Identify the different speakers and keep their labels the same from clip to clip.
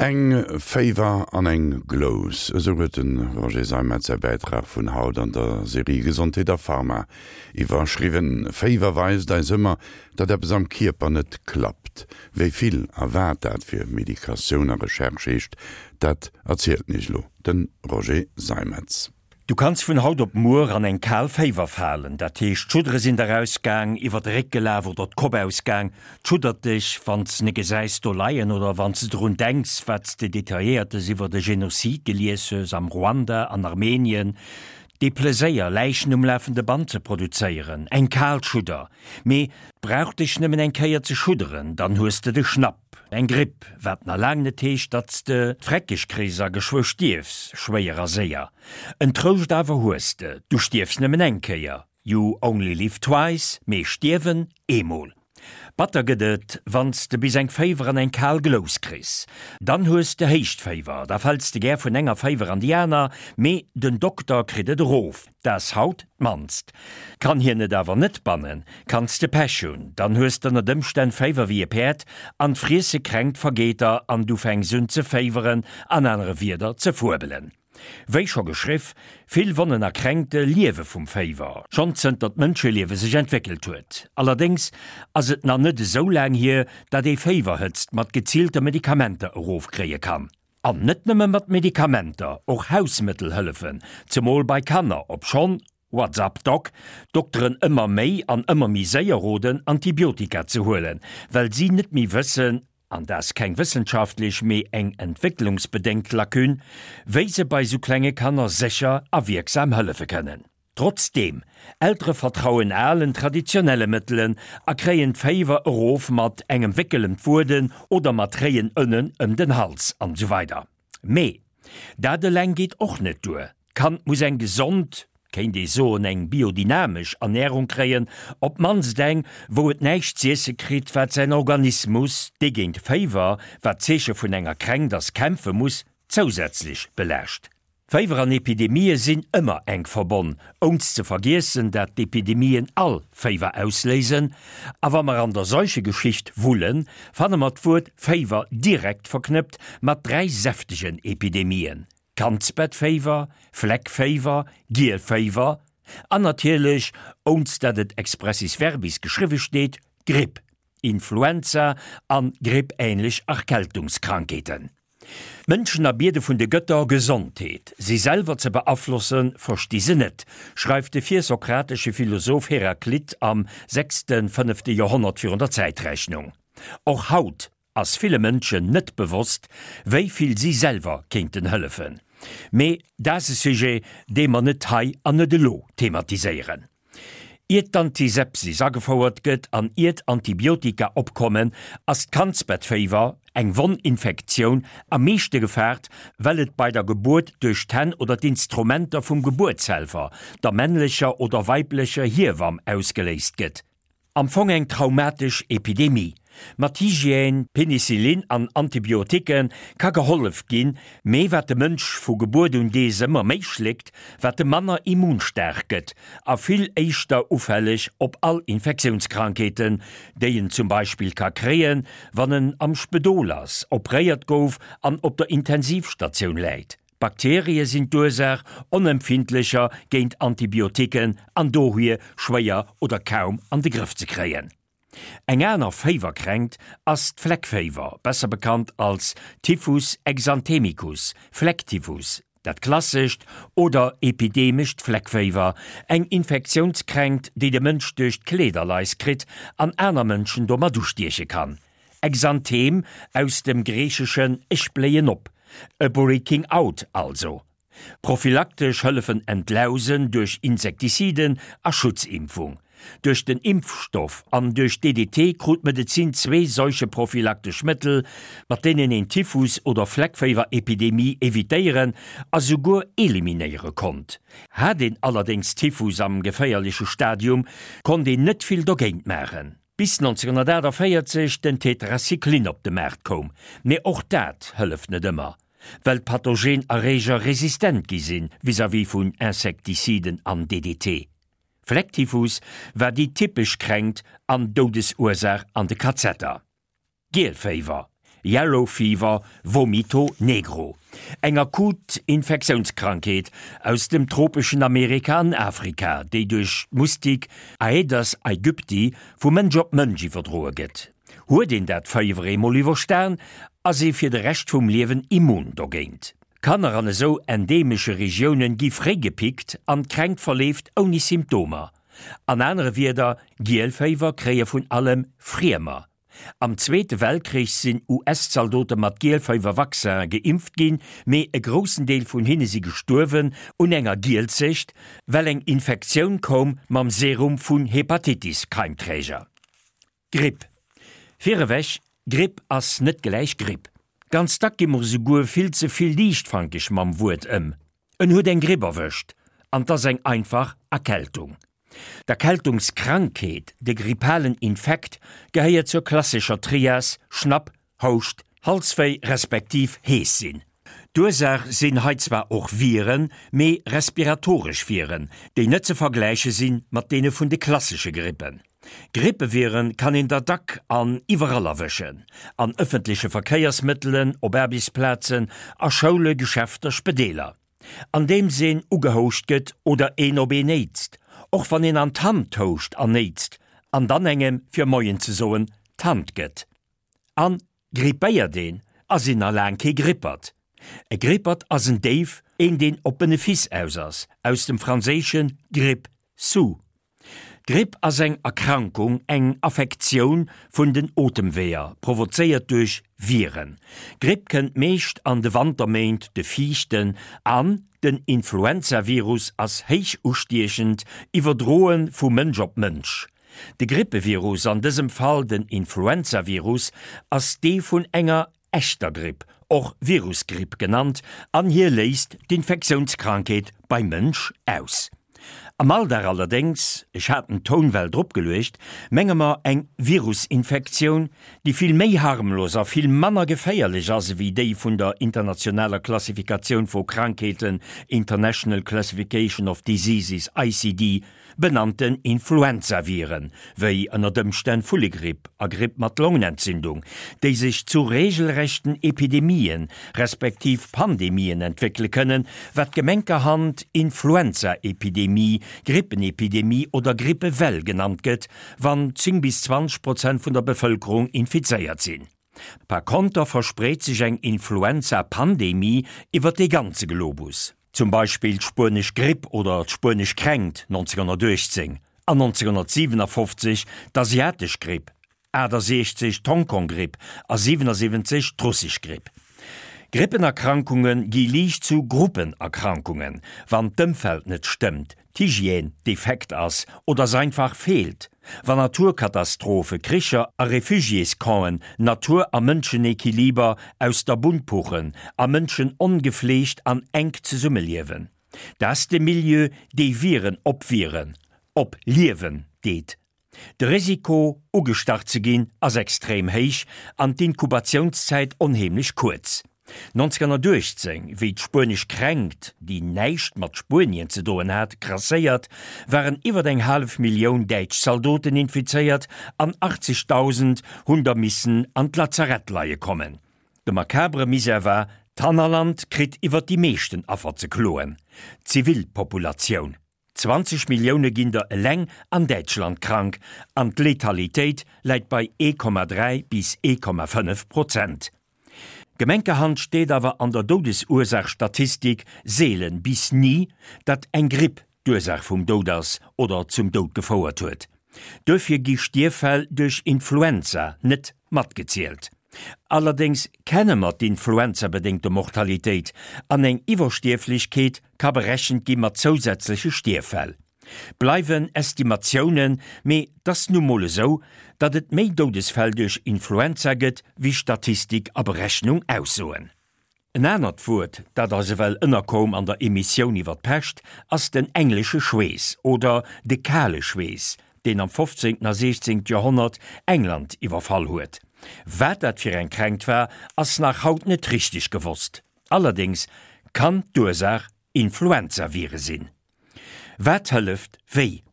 Speaker 1: Eng Féiwer an eng Glous, esou huet de Roger Seimetz säi Bäitrag vun haut an der Serie Gesondheet a Pharma iwwerschriwwen. Féiwer weist eis ëmmer, datt eppes am Kierper net klappt. Wéi vill a wat dat fir Medikatioun a Recherche heescht, dat erzielt iech elo de Roger Seimetz.
Speaker 2: Du kanns vun haut op muer an eng kal Féiwer falen, dat heescht d'Schuddere sinn der ausgaang, iwwer de Réck gelaf oder d'Kopp ausgaang. D'schuddert dech, wann s ne gesäis do leien oder wann s de drun denks, wat s de Detailléiertes iwwer e Genozid gelies hues am Ruanda, an Armenien. Dee Pleséier, Läichen um lafende Band ze produzéieren, eng kal Schudder. Mee 't brauch dech nëmmen eng Kéier ze schudderen, dann hues de de Schnapp. Eng Gripp, wat na laang net heescht, datt s de d'Freckeg kriss a geschwë stierfs, schwéier a séier. En Trouscht awer hues de, du stierfs nëmmen eng Kéier, you only live twice, mee stierwen eemol. Batter gëtt et, wann s de bis eng Féiwer an eng kal Glous kriss. Dann hues de Héichtféiwer, da fäls de gär vun enger Féiwer an déi aner, mee den Dokter kritt et erof. Da's haut d'mannst. Kann hien et awer net bannen, kanns de Pech hunn, dann hues d'ënnert Ëmstänn Féiwer wéi e Päerd an d'Friesse kränkt vergeet der an du fänks un ze féiweren, an anere Wierder ze fuebelen. Wéi scho geschriff, vill Wonnen a Kränkte liewe vum Féiwer, schonn zënter d'Mënscheliewe sech entwéckelt huet. Allerdéngs ass et na net esou laang hier, dat ee Féiwerhëtzt mat geziilte Medikamenter erofkréie kann. An net nëmme mat Medikamenter, och Hausmëttel hëllefen, zemol bei Kanner, obschonn, What's up Doc, d'Dokteren ëmmer méi an ëmmer méi séier roden, Antibiotika ze huelen, well si net méi wëssen, an dat ass keng wëssenschaftlech, mee eng entwécklungsbedéngt Lacune, wéi se bei sou klenge Kanner sécher a wierksam hëllefe kënnen. Trotzdeem, Eltere vertrauen alen, traditionelle Mëttelen a kréien d'Féiwer erof mat engem Wéckel ëm d'Wueden oder mat réien Ënnen ëm den Hals an esou weider. Mee dat eleng geet och net duer, d'Kand muss eng gesond, kéint ee soen eng biodynamesch Ernärung kréien, op d'mannst eng, wou et näischt z'iesse kritt, wat säin Organismus, dee géint Féiwer, wat d'Zeeche vun enger Kränkt ass, kämpfe muss, zousätzlech belaascht. Féiwer an Epidemië sinn ëmmer enk verbonn, ounst ze vergiessen, dat d'Epidemien all Féiwer ausléisen. A wa mer an der Seuchegeschicht wullen, fanne mer d'Wuert Féiwer direkt verknëppt mat 3 säftegen Epidemien, Kandsbettféiwer, Fleckféiwer, Gielféiwer an natierlech, ounst dat et expressis verbis geschriwwe steet, Gripp, Influenza an grippähnlech Erkältungskrankheeten. D'Mënschen erbiede vun de Gëtter Gesondheet. Si selwer ze beaflossen, versti se net, schreift de virsokratesche Philosoph Heraklit am sechsten-fënnefte Joerhonnert virun der Zäitrechnung. Och haut ass ville Mënschen net bewosst, wéi vill si selwer kéinten hëllefen. Mee dat ass e Sujet, dee mer net hei an net elo thematiséieren. Iert d'Antisepsis agefouert gëtt an iert Antibiotika opkommen, ass d'Kandsbettféiwer, eng Wonninfektioun, am meeschte gefaart, well et bei der Gebuert duerch d'Hänn oder d'Instrumenter vum Gebuertshelfer, der männlecher oder weiblecher Hiewamm, ausgeléist gëtt. Am Fong eng traumatesch Epidemie. Mat Hygiène, Penicillin an Antibiotiquë ka gehollef ginn, mee wat de Mënsch vu Gebuert un dees ëmmer méi schléckt, wat e manner immunstaark gëtt a vill éischter ufälleg op all Infektiounskrankheeten, déi en zum Beispill ka kréien, wann en am Spedol ass, opréiert gouf an op der Intensivstatioun läit. Bakterie sinn d'Ursaach, onempfindlecher géint Antibiotiquen an dohier schwéier oder kaum an de Grëff ze kréien. Eng aner Féiwerkränkt ass d'Fleckféiwer, besser bekannt als Typhus exanthemicus, Flecktyphus, dat klassescht oder epidemescht Fleckféiwer, eng Infektiounskränkt, déi de Mënsch duerch d'Kleederlais kritt an aner Mënschen domat ustieche kann. Exanthem, aus dem Griicheschen ech bléien op, e Breaking out also. Prophylaktesch hëllefen Entlausen duerch Insektiziden a Schutzimpfung. Duerch den Impfstoff an duerch DDT krut d'Medezin zwee seucheprophylaktesch Mëttel, mat deenen een Typhus oder Fleckféiwerepidemie evitéieren a souguer eliminéiere konnt. Hat een allerdéngs Typhus am geféierleche Stadium, konnt een net vill dogéint maachen. Bis 1948 den Tetracyclin op de Maart koum, mee och dat hëlleft net ëmmer, well d'pathogen Erreeger resistent gi sinn vis-à-vis vun Insektiziden an DDT. Flecktyphus war déi typesch Kränkt an Doudesursaach an de Kazetter. Gielféiwer. Yellow Fever, Vomito Negro. Eng akut Infektiounskrankheet aus dem tropeschen Amerika an Afrika, déi duerch d'Mustik Aedes aegypti vu Mënsch op Mënsch iwwerdroe gëtt. Huet een dat Féiwer eemol iwwerstan, ass ee fir de Rescht vum Liewen immun dogéint. Kanner an esou endemesche Regioune gi fréi gepickt an d'Kränkt verleeft ouni Symptomer. An anere Wierder, Gielféiwer kréie vun allem Friemer. Am Zweete Weltkrich sinn US-Zaldote mat Gielféiwer-Vaccin geimpft ginn, mee e groussen Deel vun hinne si gestuerwen un enger Gielzecht, well eng Infektioun koum mam Serum vun Hepatitis-Keimträger. Gripp. Virewech, Gripp ass net gläich Gripp. Ganz dack gi mer esouguer vill ze vill liichtfankeg mam Wuert ëm. En huet eng Gripp erwëscht, an 't ass eng einfach Erkältung. D'Erkältungskrankheet, de grippalen Infekt, gehéiert zur klassescher Trias Schnapp, Houscht, Halswéi respektiv hees sinn. D'Ursaach sinn hei zwar och Viren, mee respiratoresch Viren, déi net ze vergläiche si mat deene vun de klassesche Grippen. Grippeviren kann een der dack an iwwerall erwëschen, an ëffentleche Verkéiersmëttelen, op Aarbechtsplazen, a Schoule, Geschäfter, Spedeeler. Andeems een ugehouscht gëtt oder een op een néitst, och wann een an d'Hand houscht an néitst an dann engem fir Moien ze soen d'Hand gëtt. An grippéiert een, ass een nach laang kee Grippert. E Grippert ass en Déif, een deen op Benefice aus ass, aus dem franséischen grippe sous. D'Gripp ass eng Erkrankung, eng Affektioun vun den Otemweeër, provozéiert duerch Viren. D'Gripp kënnt meescht an de Wanterméint, de fiichten, an den Influenzavirus ass héich ustiechend, iwwerdroe vu Mënsch op Mënsch. De Grippevirus, an dësem Fall den Influenzavirus, ass dee vun enger echter Gripp, och Virusgripp genannt, an hie léist d'Infektiounskrankheet beim Mënsch aus. Am Alldag allerdéngs, ech hat den Toun well drop geluecht, menge mer eng Virusinfektioun, déi vill méi harmlos a vill manner geféierlech ass ewéi déi vun der internationaler Klassifikatioun vu Krankheeten, International Classification of Diseases, ICD, Benannten Influenzaviren, wéi ënnert Ëmstänn Vullegripp a Gripp mat Longenentzündung, déi sech zu regelrechten Epidemien, respektiv Pandemien entwéckele kënnen, wat gemenkerhand Influenzaepidemie, Grippenepidemie oder Grippewell genannt gëtt, wann 10 bis 20 Prozent vun der Bevëlkerung infizéiert sinn. Par konter verspreet sech eng Influenza-Pandemie iwwer dee ganze Globus. Zum Beispill d'Spuenesch Gripp oder d'Spuenesch Kränkt 1918 an 1957 d'Asiatesch Gripp, 68 d'Hongkong-Gripp a 77 d'Russesch Gripp. Grippenerkrankunge gi liicht zu Gruppenerkrankungen, wann d'Ëmfeld net stëmmt, d'Hygiène defekt ass oder s'einfach feelt, wann Naturkatastrophe, Kricher a Refugiéscampen Natur a Mënschenequiliber aus der Bunn puchen a Mënschen ongefleegt an enk zesummeliewen. Dat de Milieu, dee Viren op Viren op Liewen deet. De Risiko, ugestach ze ginn, ass extrem héich an d'Inkubatiounszäit onheemlech kuerz. 1918, wéi d'spuenesch Kränkt, déi näischt mat Spuenien ze doen hat, grasséiert, waren iwwer eng hallef Millioun däitsch Zaldoten infizéiert an 80.000 hunn der missen an d'Lazarett leie kommen. De makabre Misär war, d'Hannerland kritt iwwer déi meeschten Affer ze kloen, d'Zivilpopulatioun. 20 Millioune ginn der eleng an Däitschland krank an d'Letalitéit läit bei 1,3 bis 1,5 Prozent. Gemenkerhand steet awer an der Doudesursaachstatistik seelen bis ni, datt eng Gripp d'Ursaach vum Doud ass oder zum Doud gefouert huet. Duerfir gi Stierffäll duerch Influenza net matgezielt. Allerdéngs kenne mer d'influenzabedéngte Mortalitéit an eng Iwwerstierflechkeet ka berechent gi mat zousätzleche Stierffäll. Bleiwen Estimatiounen, mee 't ass nu mol esou, datt et méi Doudesfäll duerch Influenza gëtt, wéi Statistik a Berechnung aussoen. En anert Wuert, dat eis ewell ënnerkoum an der Emissioun iwwer d'Pescht, ass den englesche Schweess oder de kale Schweess, deen am 15. a 16. Joerhonnert England iwwerfall huet. Wat dat fir eng Kränkt war, ass nach haut net richteg gewosst. Allerdéngs kann d'Ursaach Influenzavire sinn. Wat hëlleft wéi?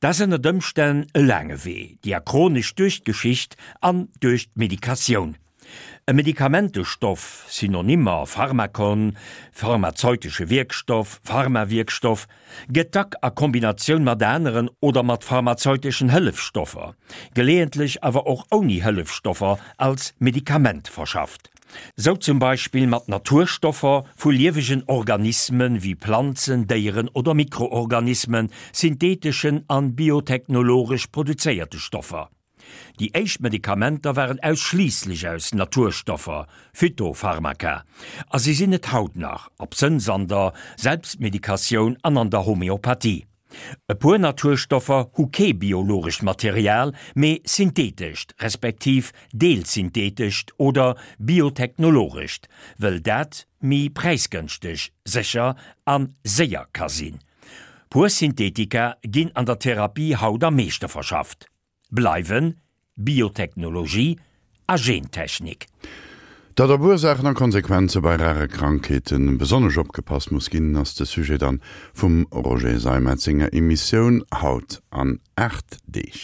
Speaker 2: Dat ass ënnert Ëmstänn e laange Wee, diachronesch duerch d'Geschicht an duerch d'Medikatioun. E Medikamentestoff, Synonymer, Pharmakon, pharmazeutesche Wierkstoff, Pharmawierkstoff, gëtt dack a Kombinatioun mat aneren oder mat pharmazeuteschen Hëllefstoffer, geleeëntlech awer och ouni Hëllefstoffer als Medikament verschafft. Sou zum Beispill mat Naturstoffer vu liewegen Organisme wéi Planzen, Déieren oder Mikroorganismen, syntheeteschen an biotechnologesch produzéierte Stoffer. Déi éischt Medikamenter waren ausschliisslech aus Naturstoffer, Phytopharmaka, a si sinn et haut nach, absënns an der Selbstmedikatioun an an der Homeopathie. E puer Naturstoffer hu kee biologescht Material, mee syntheetescht, respektiv deelsyntheetescht oder biotechnologescht, wëll dat méi präisgënschteg, sécher a séier ka sinn. Puer Synthetika ginn an der Therapie haut am meeschte verschafft. Bleiwen Biotechnologie a Gentechnik.
Speaker 1: Datt op Ursaachen a Konsequenze bei rare Krankheete besonnesch opgepasst muss ginn, ass de Sujet dann vum Roger Seimetz senger Emissioun haut an 8 Deeg.